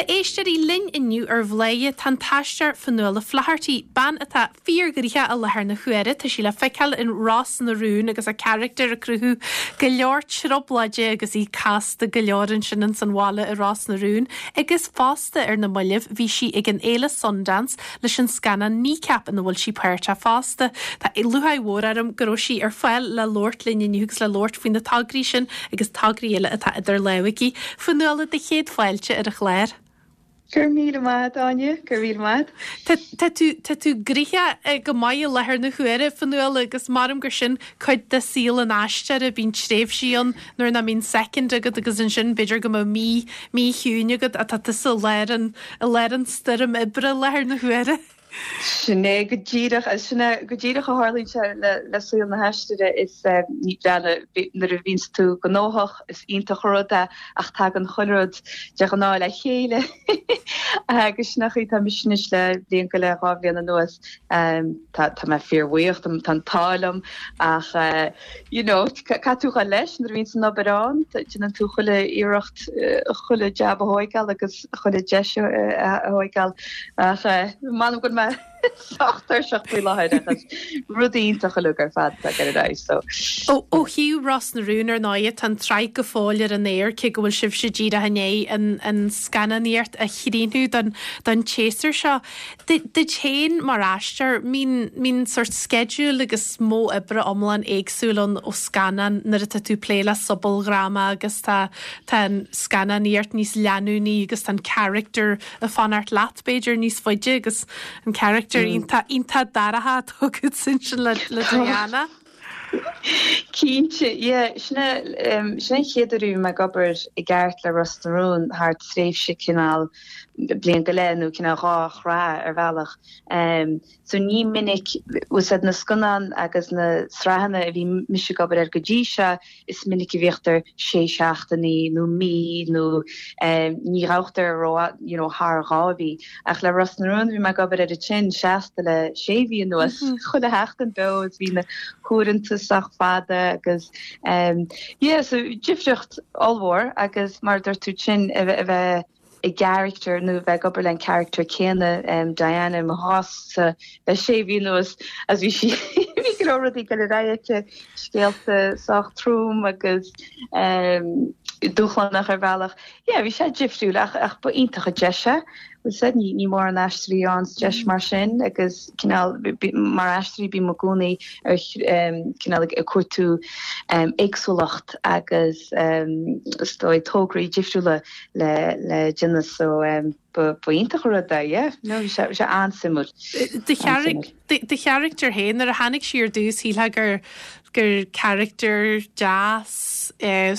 A éisteoirí, linn inniu ar Bhladhaire tá an t-aisteoir Fionnuala Flaherty, bean atá fíorghnoitheach i láthair na huaire. Tá sí le feiceáil in Ros na Rún agus a carachtar ag cruthú go leor trioblóide agus í casta go leor ansin ins an bhaile i Ros na Rún agus fosta ar na mallaibh bhí sí ag an fhéile Sundance leis an scannán Kneecap ina bhfuil sí páirteach fosta. Tá lúcháir mhór orm go raibh sí ar fáil le labhairt linn inniu agus le labhairt faoi na tograí sin agus tograí eile atá idir lámha aici. Fionnuala, do chéad fáilte ar an chlár. Go raibh míle maith agat, Áine, go raibh míle maith agat. Tá tú, tá tú gnoitheach go maith i láthair na huaire, Fionnuala, agus maram gur sin cuid de saol an aisteora, bíonn tréimhsí ann nuair nach mbíonn soicind agat agus ansin b'fhéidir go mbeadh mí, mí chiúin agat ach tá tusa i lár an, i lár an stoirm oibre i láthair na huaire. Sin é go díreach, sin é go díreach a tharlaíonn sé le saol na haisteora is ní breá nuair a bhíonns tú gnóthach is iontach an rud é ach tagann chuile rud de ghnáth le chéile agus sin an chaoi atá mise anois le bliain go leith, 2 bhliain anuas. Tá tá mé fíorbhuíoch, tá an t-ádh liom ach you know caithfidh tú dhul leis nuair a bhíonns an obair ann, déanann tú chuile iarracht chuile jab a thóigeáil agus chuile deis a thóigeáil ach m'anam go bhfuil mé sách tuirseach faoi láthair ach is rud iontach uilig ar fad atá ag dul ar aghaidh so. Ó thaobh Ros na Rún ar ndóighe tá an tsraith go fóill ar an aer cé go bhfuil sibhse díreach i ndiaidh an an scannánaíocht a chríochnú don don tséasúr seo. Duit féin mar aisteoir, mbíonn, mbíonn sórt sceideal agus modh oibre iomlán éagsúil ann ó scannán nuair atá tú ag plé le sobaldhráma agus tá, tá an scannánaíocht níos leanúnaí agus tá an character ag fanacht leat b'fhéidir níos faide agus an character iontach, iontach dorcha atá agat ansin le, le Diana. Cinnte, yeah. Sin é, sin é an chéad uair a bhí mé ag obair i gceart le Ros na Rún thar tréimhse cineál bliain go leith nó cineál 2 shraith ar bhealach. So ní minic, bhfuil 's a'd na scannáin agus na sraitheanna a bhí mise ag obair air go dtí seo, is minic a bhíochtar sé seachtainí nó mí nó ní ghabhtar ró you know thar 2 mhí. Ach le Ros na Rún bhí mé ag obair air ansin seasta le sé mhí anuas, chuile sheachtain beo is bhí na huaireanta sách fada agus yeah so difríocht ollmhór agus mar a dúirt tú ansin a bheith i gcarachtar nó a bheith ag obair le an charachtar céanna, Diana i mo chás-sa le sé mhí anuas agus bhí sí, bhí go leor rudaí ag dul ar aghaidh aici, scéalta sách trom agus dúshlánach ar bhealach. Yeah, bhí sé difriúil ach ach ba iontach an deis é. Bhfuil 's a'd, ní ní mórán aisteoirí a fhaigheanns deis mar sin agus cineál mar aisteoirí bím i gcónaí ar cineál ag cuartú éagsúlacht agus is dóigh tograí difriúla le le déanamh so ba ba iontach an rud é yeah no bhí sé bhí sé an-suimiúil. Do do charachtar féin nuair a tháinig sí ar dtús shílfeá gur gur charachtar deas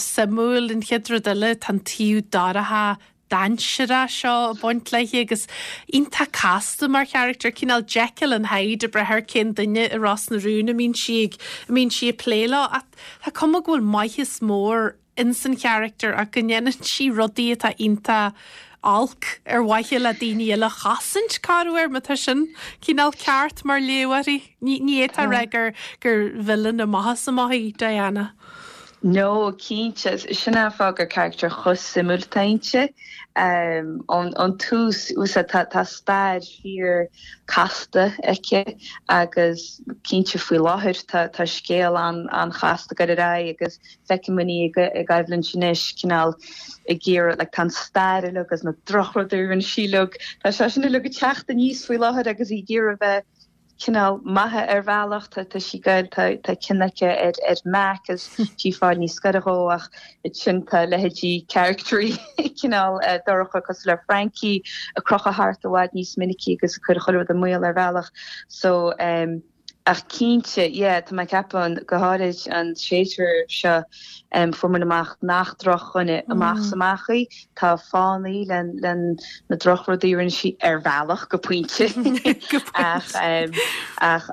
suimiúil an chéad rud eile tá an taobh dorcha dainséarach seo ag baint léi agus iontach casta mar charachtar cineál Jekyll and Hyde ag brath ar cén duine i Ros na Rún a mbíonn sí ag a mbíonn sí ag plé leo ach tá cuma go bhfuil maitheas mór ins an charachtar ach go ndéanann sí rudaí atá iontach olc ar mhaithe le daoine eile a chosaint, corruair, má tá sin cineál ceart mar léamh uirthi. Ní ní fhéadfá a rá gur gur villain amach is amach í Diana. No, cinnte. Sin é an fáth gur charachtar chomh suimiúil atá inti. Ón tús, tá tá stair fíor casta aici agus cinnte faoi láthair tá tá scéal an an-chasta ag dul ar aghaidh agus Feicimid í i gcoimhlint anois, cineál ag iarraidh, like, tá an stair uilig agus na drochrudaí a rinne sí uilig, tá sé sin uilig ag teacht aníos faoi láthair agus í ag iarraidh bheith cineál maith ar bhealach, tá, tá sí ag goil, tá, tá cion aici ar, ar Mac agus sí ag fáil níos gaire dhó ach ansin tá leithéidí characteraí cineál dorcha cosúil le Frankie ag crochadh thart i bhfad níos minicí agus ag cur chuile rud i mbaol ar bhealach so um, Ach cinnte, yeah, tá mé ag ceapadh, go háirid an séasúr seo, fuair muid amach nach drochdhuine amach is amach í. Tá fáthanna le le na drochrudaí a rinne sí ar bhealach, go pointe. Ach ach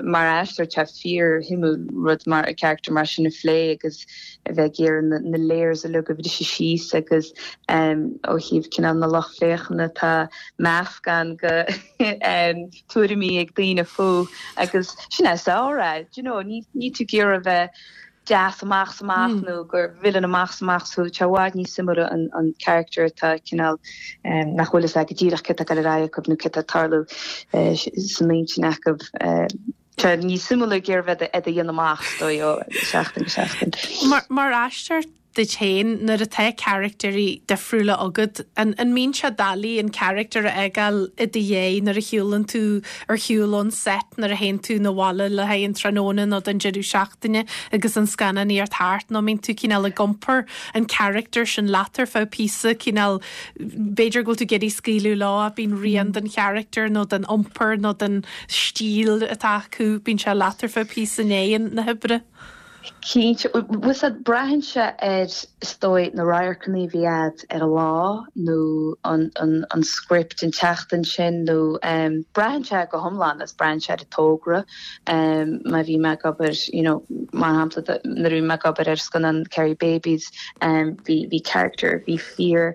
mar aisteoir tá fíorshuimiúil rud mar character mar sin a phlé agus a bheith ag iarraidh na na layers uilig a bhriseadh síos agus ó thaobh cineál na lucht féachana tá meascán de tuairimí ag daoine fúithi agus sin é is fearr é, do you know, ní, ní tú ag iarraidh a bheith. deas amach 's amach nó gur villain amach 's amach thú, tá sé i bhfad níos suimiúla an character atá cineál nach bhfuil fhios agat go díreach céard atá ag dul ar aghaidh acu nó céard atá ag tarlú san intinn acu. Tá níos suimiúla ag iarraidh bheith ag déanamh amach, is dóigh, ó sheachtain go seachtain. Mar aisteoir duit féin, nuair atá caractéirí difriúla agat, an mbíonn sé doiligh an caractar a fhágáil i do dhiaidh nuair a shiúlann tú ar shiúl ón set, nuair a théann tú 'na bhaile le haghaidh an tráthnóna nó don deireadh seachtaine agus an scannánaíocht thart, nó an mbíonn tú cineál ag iompar an character sin leat ar feadh píosa, cineál b'fhéidir go bhfuil tú ag iarraidh scaoileadh leo ach bíonn rian den character nó den iompar nó den stíl atá acu, bíonn sé leat ar feadh píosa i ndiaidh na hoibre. Cinnte, bhfuil 's a'd, braitheann sé ar, is dóigh, na radharcanna a bhí a'd ar an lá nó an, an, an script an tseachtain sin nó braitheann sé go hiomlán agus braitheann sé ar an togra. Má bhí mé ag obair, you know, mar shampla, nuair a bhí mé ag obair ar scannán Kerry Babies, bhí, bhí character, bhí fíor,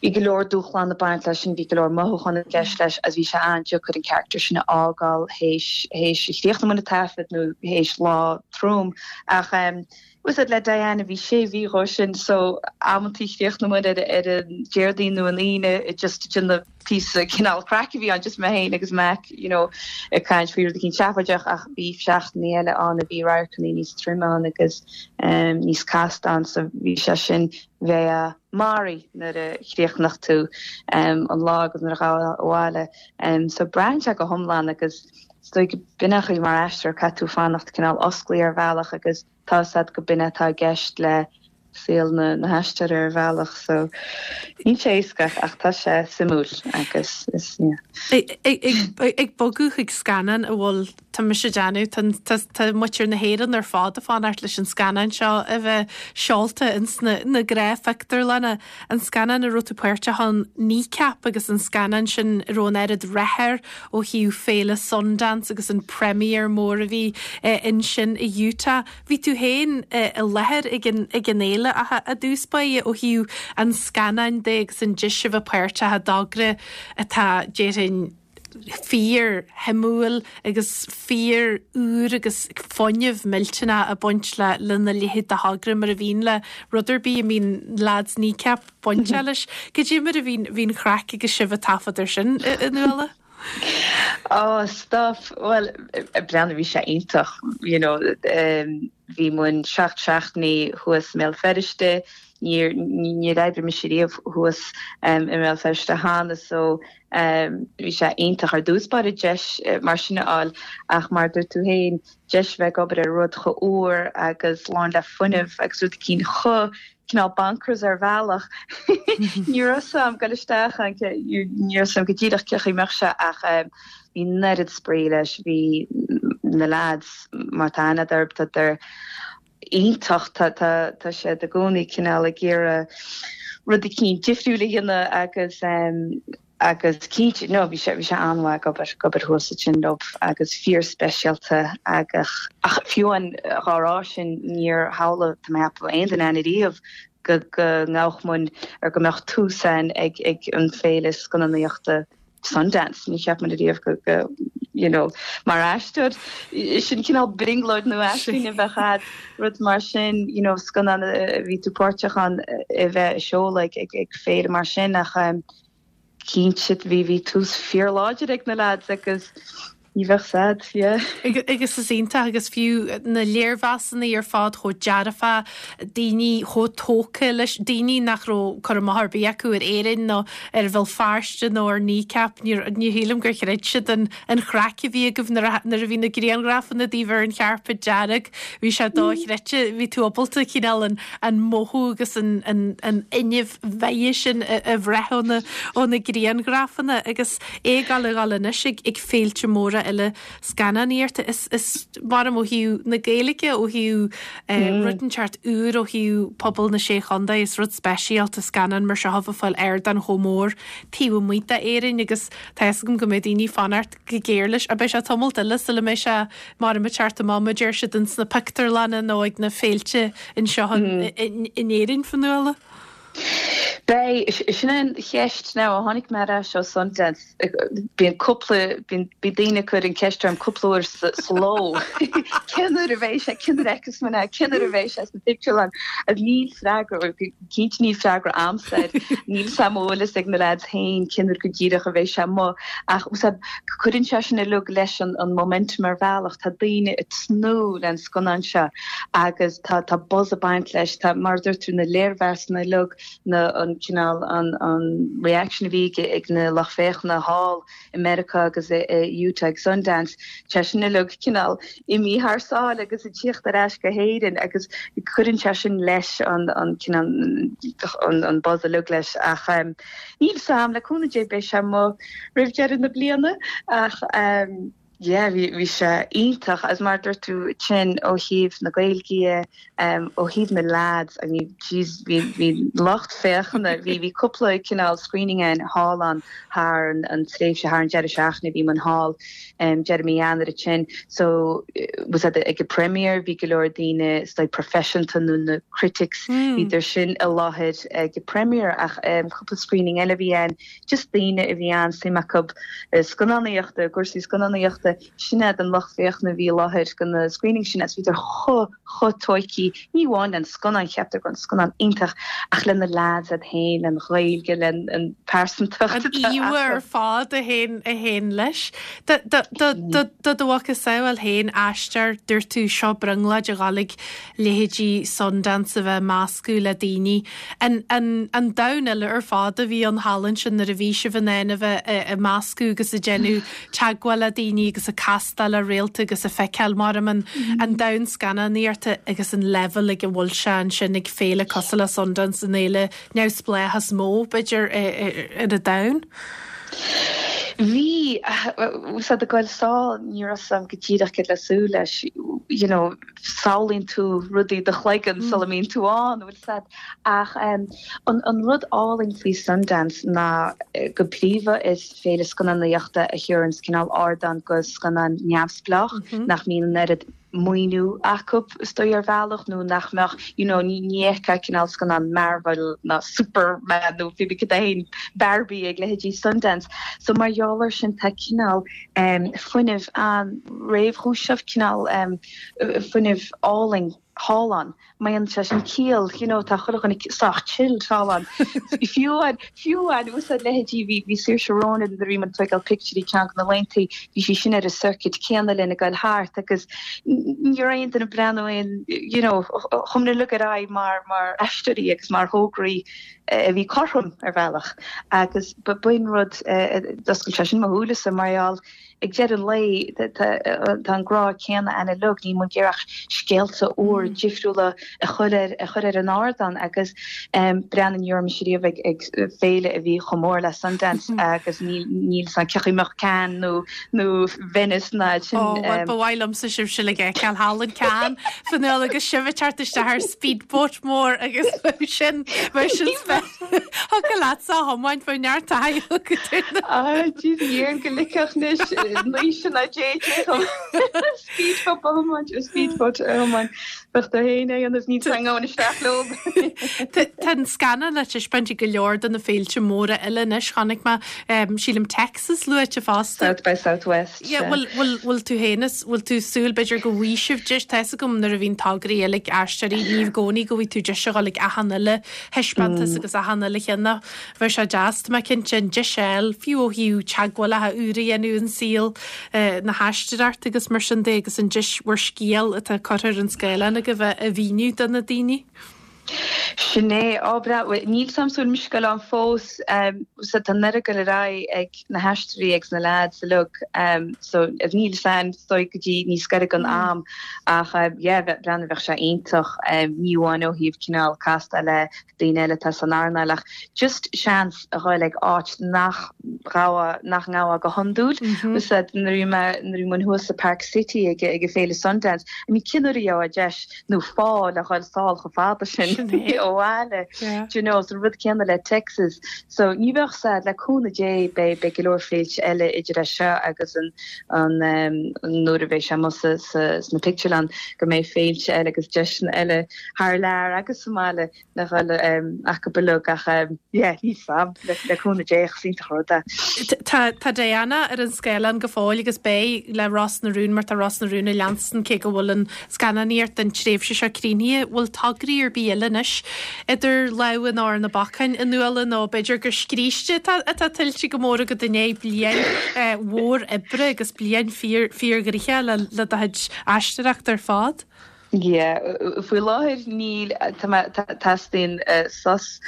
Bhí go leor dúshlán ag baint leis sin, bhí go leor mothúchán i gceist leis agus bhí sé an-deacair an character sin a fhágáil théis théis a chríochnú an taifead nó théis lá trom. Ach bhfuil 's a'd le Diana bhí sé mhí dhó sin so amantaí chríochnaigh muid ar ar an Déardaoin nó an Aoine just ag déanamh píosa cineál craic a bhí ann just mé féin agus Mac you know ag caint faoi rud eicínt seafóideach ach bhí seachtainí eile ann a bhí radharcanna níos troime ann agus níos casta ann so bhí sé sin bheifeá maraithe nuair a chríochnódh tú an lá agus nuair a ghabhfá abhaile. So braitheann sé go hiomlán agus is dóigh go b'in an chaoi mar aisteoir caithfidh tú fanacht cineál osclaithe ar bhealach agus tá 'fhios a'd go b'in atá i gceist le saol na haisteora ar bhealach. So níl sé éasca ach tá sé suimiúil agus is yeah. Ag bogadh chuig scannán a bhfuil Tá mise ag déanamh, tá, tá muintir na hÉireann ar fad ag fanacht leis an scannán seo a bheith seolta ins na, na gnáthphictiúrlanna. An scannán a raibh tú páirteach ann, Kneecap, agus an scannán sin a raibh an oiread rath air ó thaobh féile Sundance agus an premiere mór a bhí ansin i Utah. Bhí tú féin i láthair ag an, ag an fhéile ach i dtús báire ó thaobh an scannáin de agus an deis a bheith páirteach i dtogra atá, déarfainn, fíor shuimiúil agus fíor úr agus fuinneamh millteanach ag baint le lena leithéid de thogra mar a bhíonn le rud ar bith a mbíonn leaids Kneecap bainteach leis. Cad é mar a bhí an chraic agus sibh ag taifead ar sin a Nuala? Oh stuff, bhuel breathnaigh bhí sé iontach you know bhí muid seacht seachtainí thuas i mBéal Feirste, níor níor oibrigh mise riamh thuas i mBéal Feirste cheana so Bhí sé iontach ar dtús báire deis mar sin a fháil ach mar a dúirt tú féin, deis a bheith ag obair ar rud chomh úr agus lán le fuinneamh agus rud eicínt chomh cineál bonkers ar bhealach. Ní raibh 'fhios a'm goil isteach ann, ní raibh 'fhios a'm go díreach cé chaoi mbeadh sé ach bhí an oiread spraoi leis, bhí na lads mar tá aithne a'd orthu, tá iontach. Tá siad i gcónaí cineál ag iarraidh rud eicínt difriúil a dhéanamh agus agus cinnte, no, bhí sé, bhí sé an-mhaith ag obair, ag obair thuas ansin leo agus fíor speisialta agus ach fiú amháin dhá rá sin níor shamhlaigh, tá mé ag ceapadh, aon duine againn ariamh go go ngabhadh muid ar go mbeadh tús ann ag ag an féile scannánaíochta Sundance, ní cheap muid ariamh go, go, you know, mar aisteoir, sin cineál brionglóid nó aisling a bheadh a'd, rud mar sin, you know, scannán a bhí tú páirteach ann a bheith á seoladh ag, ag, ag féile mar sin ach ehm, cinnte bhí, bhí tús fíorláidir ag na lads agus ní bheadh 's a'd, yeah. Agus is iontach agus fiú na léirmheasanna ar fad chomh dearfach, daoine chomh tógtha leis, daoine nach raibh cur amach ar bith acu ar Éirinn nó ar Bhéal Feirste nó ar Kneecap, ní ní shílim gur chreid siad an an chraic a bhí agaibh nuair a nuair a bhí na grianghrafanna daoibh ar an chairpéad dearg, bhí sé dochreidte, bhí tú ábalta cineál an an mothú agus an an an fhuinneamh mhaith sin a a bhraith ó na ó na grianghrafanna agus é ag dul a dhul anois ag ag féilte móra eile scannánaíochta. Is is mar ó thaobh na Gaeilge, ó thaobh rud inteacht úr ó thaobh pobal na Sé Chontae, is rud speisialta scannán mar seo a bheith ag fáil ardán chomh mór taobh amuigh d'Éirinn agus tá fhios agam go mbeidh daoine ag fanacht go géar leis. Beidh sé tamalt eile sula mbeidh sé mar ag teacht amach mar a deir siad ins na pictiúrlanna nó ag na féilte anseo in Éirinn, Fionnuala. Beidh, sin an cheist now, ó tháinig mé ar ais ó Sundance, bíonn cúpla, bíonn, bíonn daoine ag cur an ceist orm cúpla uair sa, sa ló, cén uair a bheidh sé, cén uair a fheicfeas muid é, cén uair a bheidh sé sna pictiúrlanna, agus níl freagra, cinnte níl freagra a'msa air, níl 's a'm an bhfuil fhios ag na lads féin cén uair go díreach a bheidh sé amuigh, ach cuireann sé sin uilig leis an, an momentum ar bhealach, tá daoine ag tnúth le an scannán seo agus tá tá buzz ag baint leis, tá, mar a dúirt tú, na léirmheasanna uilig, na, an cineál, an, an reaction a bhí ag, ag na lucht féachana thall i Meiriceá agus i, i Utah ag Sundance, tá sin uilig cineál imithe thar sáile agus ag tíocht ar ais go hÉirinn agus cuireann sé sin leis an, an cineál, an, an buzz uilig leis ach níl 'fhios a'm, le cúnamh Dé beidh sé amuigh roimh deireadh na bliana ach. Yeah, bhí, bhí sé iontach agus mar a dúirt tú ansin ó thaobh na Gaeilge dhe, ó thaobh na lads, I mean, jeez, bhí, bhí lucht féachana, bhí, bhí cúpla cineál screening ann thall ann thar an, an tréimhse, thar an deireadh seachtaine a bhí muid thall, deireadh mí Eanáir ansin. So, was that ag an premiere, bhí go leor daoine, is dóigh proifisiúnta nó na critics, bhíodar sin i láthair ag an premiere ach cúpla screening eile a bhí ann, just daoine a bhí an-suim acu i scannánaíochta, i gcúrsaí scannánaíochta, sin iad an lucht féachana a bhí i láthair go na screenings sin agus bhíodar chomh, chomh tóigthe, ní amháin len scannán, cheaptar go raibh an scannán iontach, ach le na lads iad féin, len Ghaeilge, len an pearsantacht atá acu. An íomhá ar fad a théann, a théann leis. Do, do, do, do, do do mhacasamhail féin, aistear, dúirt tú, seo brionglóid a dhul ag leithéidí Sundance a bheith ag meascadh le daoine. An an domhan eile ar fad a bhí ann thall ansin nuair a bhí sibh in ann a bheith ag meascadh agus ag déanamh teagmháil le daoine agus ag castáil le réalta agus ag feiceáil mar an an domhan scannánaíochta agus an leibhéal ag a bhfuil sé ansin ag féile cosúil le Sundance, an fhéile neamhspleách is mó, b'fhéidir, ar an domhan. Bhí, bhfuil 'fhios a'd ag goil sall, ní raibh 'fhios a'm go díreach céard le súil leis, you know, samhlaíonn tú rudaí i do chloigeann sula mbíonn tú ann, bhfuil 'fhios a'd. Ach an rud álainn faoi Sundance ná go príomha is féile scannánaíochta a thabharanns cineál ardán go scannáin neamhspleách nach mbíonn an oiread maoiniú acu is dóigh ar bhealach nó nach mbeadh you know ní fheicfeá cineál scannán Marvel ná Superman nó pé bith cad é féin Barbie ag leithéidí Sundance. So mar gheall air sin tá cineál fuinneamh an-réchúiseach, cineál fuinneamh álainn thall ann. Maíonn sé sin ciall, you know, tá chuile dhuine sách chilled thall ann. Fiú amháin, fiú amháin, úsáid leithéidí, bhí, bhí Saoirse Ronan nuair a bhí muid ag tóigeáil pictiúirí ceann de na laethanta, bhí sí sin ar an circuit céanna linn ag goil thart agus ní raibh aon duine ag breathnú aon, you know, chuaigh muid uilig ar aghaidh mar, mar aisteoirí agus mar thograí a bhí cothrom ar bhealach agus b'in rud a d'oscail sé sin mo shúilesa mar gheall ag deireadh an lae tá an grá céanna ann uilig, níl muid ag iarraidh ach scéalta úr difriúla a chur ar a chur ar an ardán agus breathnaigh ní raibh mise riamh ag ag féile a bhí chomh mór le Sundance agus níl níl 'fhios a'm cén chaoi a mbeadh Cannes nó nó Venice ná sin. Ó bhuel ba mhaith liomsa sibhse uilig a fheiceáil thall in Cannes Fionnuala agus sibh ag teacht isteach ar speedboat mór agus bheadh sin bheadh sin Thiocfadh leatsa a thiomáint bheadh neart taithí agat ar na. Ah jeez dhéarfainn go ligfeadh anois Naoise ná JJ dhom speedboat a thiomáint or speedboat a thiomáint. Bheadh tú féin á dhéanamh ní tarraingeoinn isteach leo. Tá an scannán le taispeáint ag go leor de na féilte móra eile anois. Chonaic mé, sílim Texas luaite fosta. South by Southwest. Yeah, bhfuil, bhfuil, bhfuil tú féin is, bhfuil tú ag súil b'fhéidir go bhfaighidh sibh deis, tá fhios agam nuair a bhíonn tograí eile ag aisteoirí, ní i gcónaí go bhfaighidh tú deis a dhul ag achan uile thaispeántas agus achan uile cheann ach bheadh sé deas, tá mé cinnte, an deis a fháil, fiú ó thaobh teagmhálacha úra a dhéanamh in saol na haisteoireachta agus mar sin de agus an deis bhur scéal atá curtha ar an scáileán agaibh a mhíniú do na daoine. Sin é. Á, breá. Bhuel, níl 's a'm an bhfuil mise ag goil ann fós. So tá an oiread ag goil ar aghaidh ag na haisteoirí agus na leaids uilig. So níl 's a'm, is dóigh go dtí níos gaire don am. Ach yeah, breathnaigh, bheadh sé iontach, ní amháin ó thaobh cineál castáil le daoine eile atá san earnáil ach just seans a ghoil ag áit nach ghabhfá, nach ngabhfá go hiondúil. Is nuair a bhí mé, nuair a bhí muid thuas i Park City ag ag an féile Sundance, I mean cén uair a gheobhthá deis nó fáth le ghoil sall chomh fada sin. Abhaile. Do you know, is an rud céanna le Texas. So ní bheadh 's a'd, le cúnamh Dé beidh beidh go leor féilte eile idir é seo agus an an nuair a bheidh sé amuigh sa sa sna pictiúrlann go mbeidh féilte eile agus deiseanna eile thar lear agus sa mbaile le dhul acu uilig ach yeah níl 's a'm le cúnamh Dé ach is iontach an rud é. Tá tá Diana ar an scáileán go fóill agus beidh le Ros na Rún mar tá Ros na Rún ag leanstan cé go bhfuil an scannánaíocht don tréimhse seo críochnaithe. Bhfuil tograí ar bith eile anois idir lámha nó ar na bacáin a Fhionnuala nó b'fhéidir gur scríste atá atá tuillte go mór agat i ndiaidh bliain mhór oibre agus bliain fíor fíorghnoitheach le le do chuid aisteoireachta ar fad? Yeah, faoi láthair níl, tá mé, teastaíonn sos,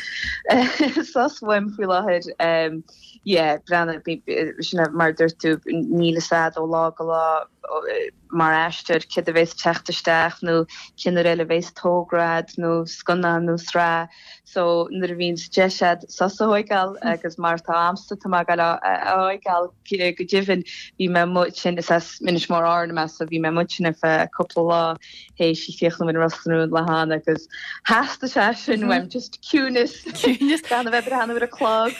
sos uaim faoi láthair. Yeah, breathnaigh, sin é mar a dúirt tú, níl fhios a'd ó lá go lá mar aisteoir céard a bhéas ag teacht isteach nó cén uair eile a bhéas togra a'd nó scannán nó sraith. So nuair a bhíonns deis a'd sos a thóigeáil agus mar atá a'msa tá mé ag gabháil á thóigeáil go deimhin bhí mé amuigh ansin is as Inis Mór Árann mé so bhí mé amuigh ansin ar feadh cúpla lá théis críochnú in Ros na Rún le hAnna agus theastaigh sé sin uaim just ciúineas Ciúineas. gan a bheith breathnú ar an clog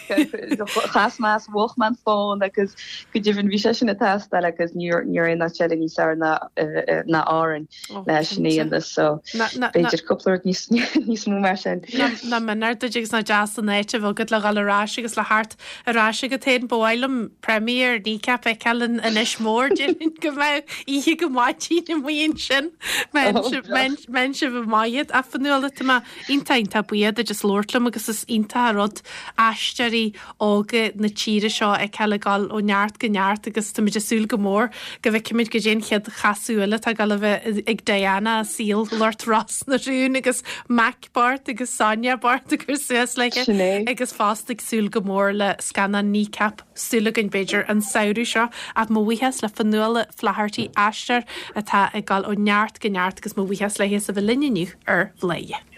chas mé as mhúch mé an fón agus go deimhin bhí sé sin ag teastáil agus ní raibh aon áit eile níos fearr ná ná Árainn. Oh, leis sin a cinnte. dhéanamh so Ná ná ná b'fhéidir cúpla rud níos níos mó mar sin. Nach méanar duit agus nach deas an áit a bheith agat le dhul ar ais agus le theacht ar ais agat féin. Ba mhaith liom premiere Kneecap a fheiceáil in Inis Mór déarfainn go mbeadh oíche go maidin amuigh ansin. Mbeidh sibh maith a Fhionnuala tá mé iontach iontach buíoch duit as labhairt liom agus is iontach an rud aisteoirí óga na tíre seo a fheiceáil ag dul ó neart go neart agus táimid ag súil go mór go bhfeicfimid goidé an chéad chasadh eile atá ag dul a bheith ag Diana i saol lucht Ros na Rún agus Mac Bart agus Sonia Bart ag cur suas léi Sin é. agus fosta ag súil go mór le scannán Kneecap súil againn b'fhéidir an samhradh seo ach mo bhuíochas le Fionnuala Flaherty aisteoir atá ag dul ó neart go neart agus mo bhuíochas léi as a bheith linn inniu ar Bhladhaire.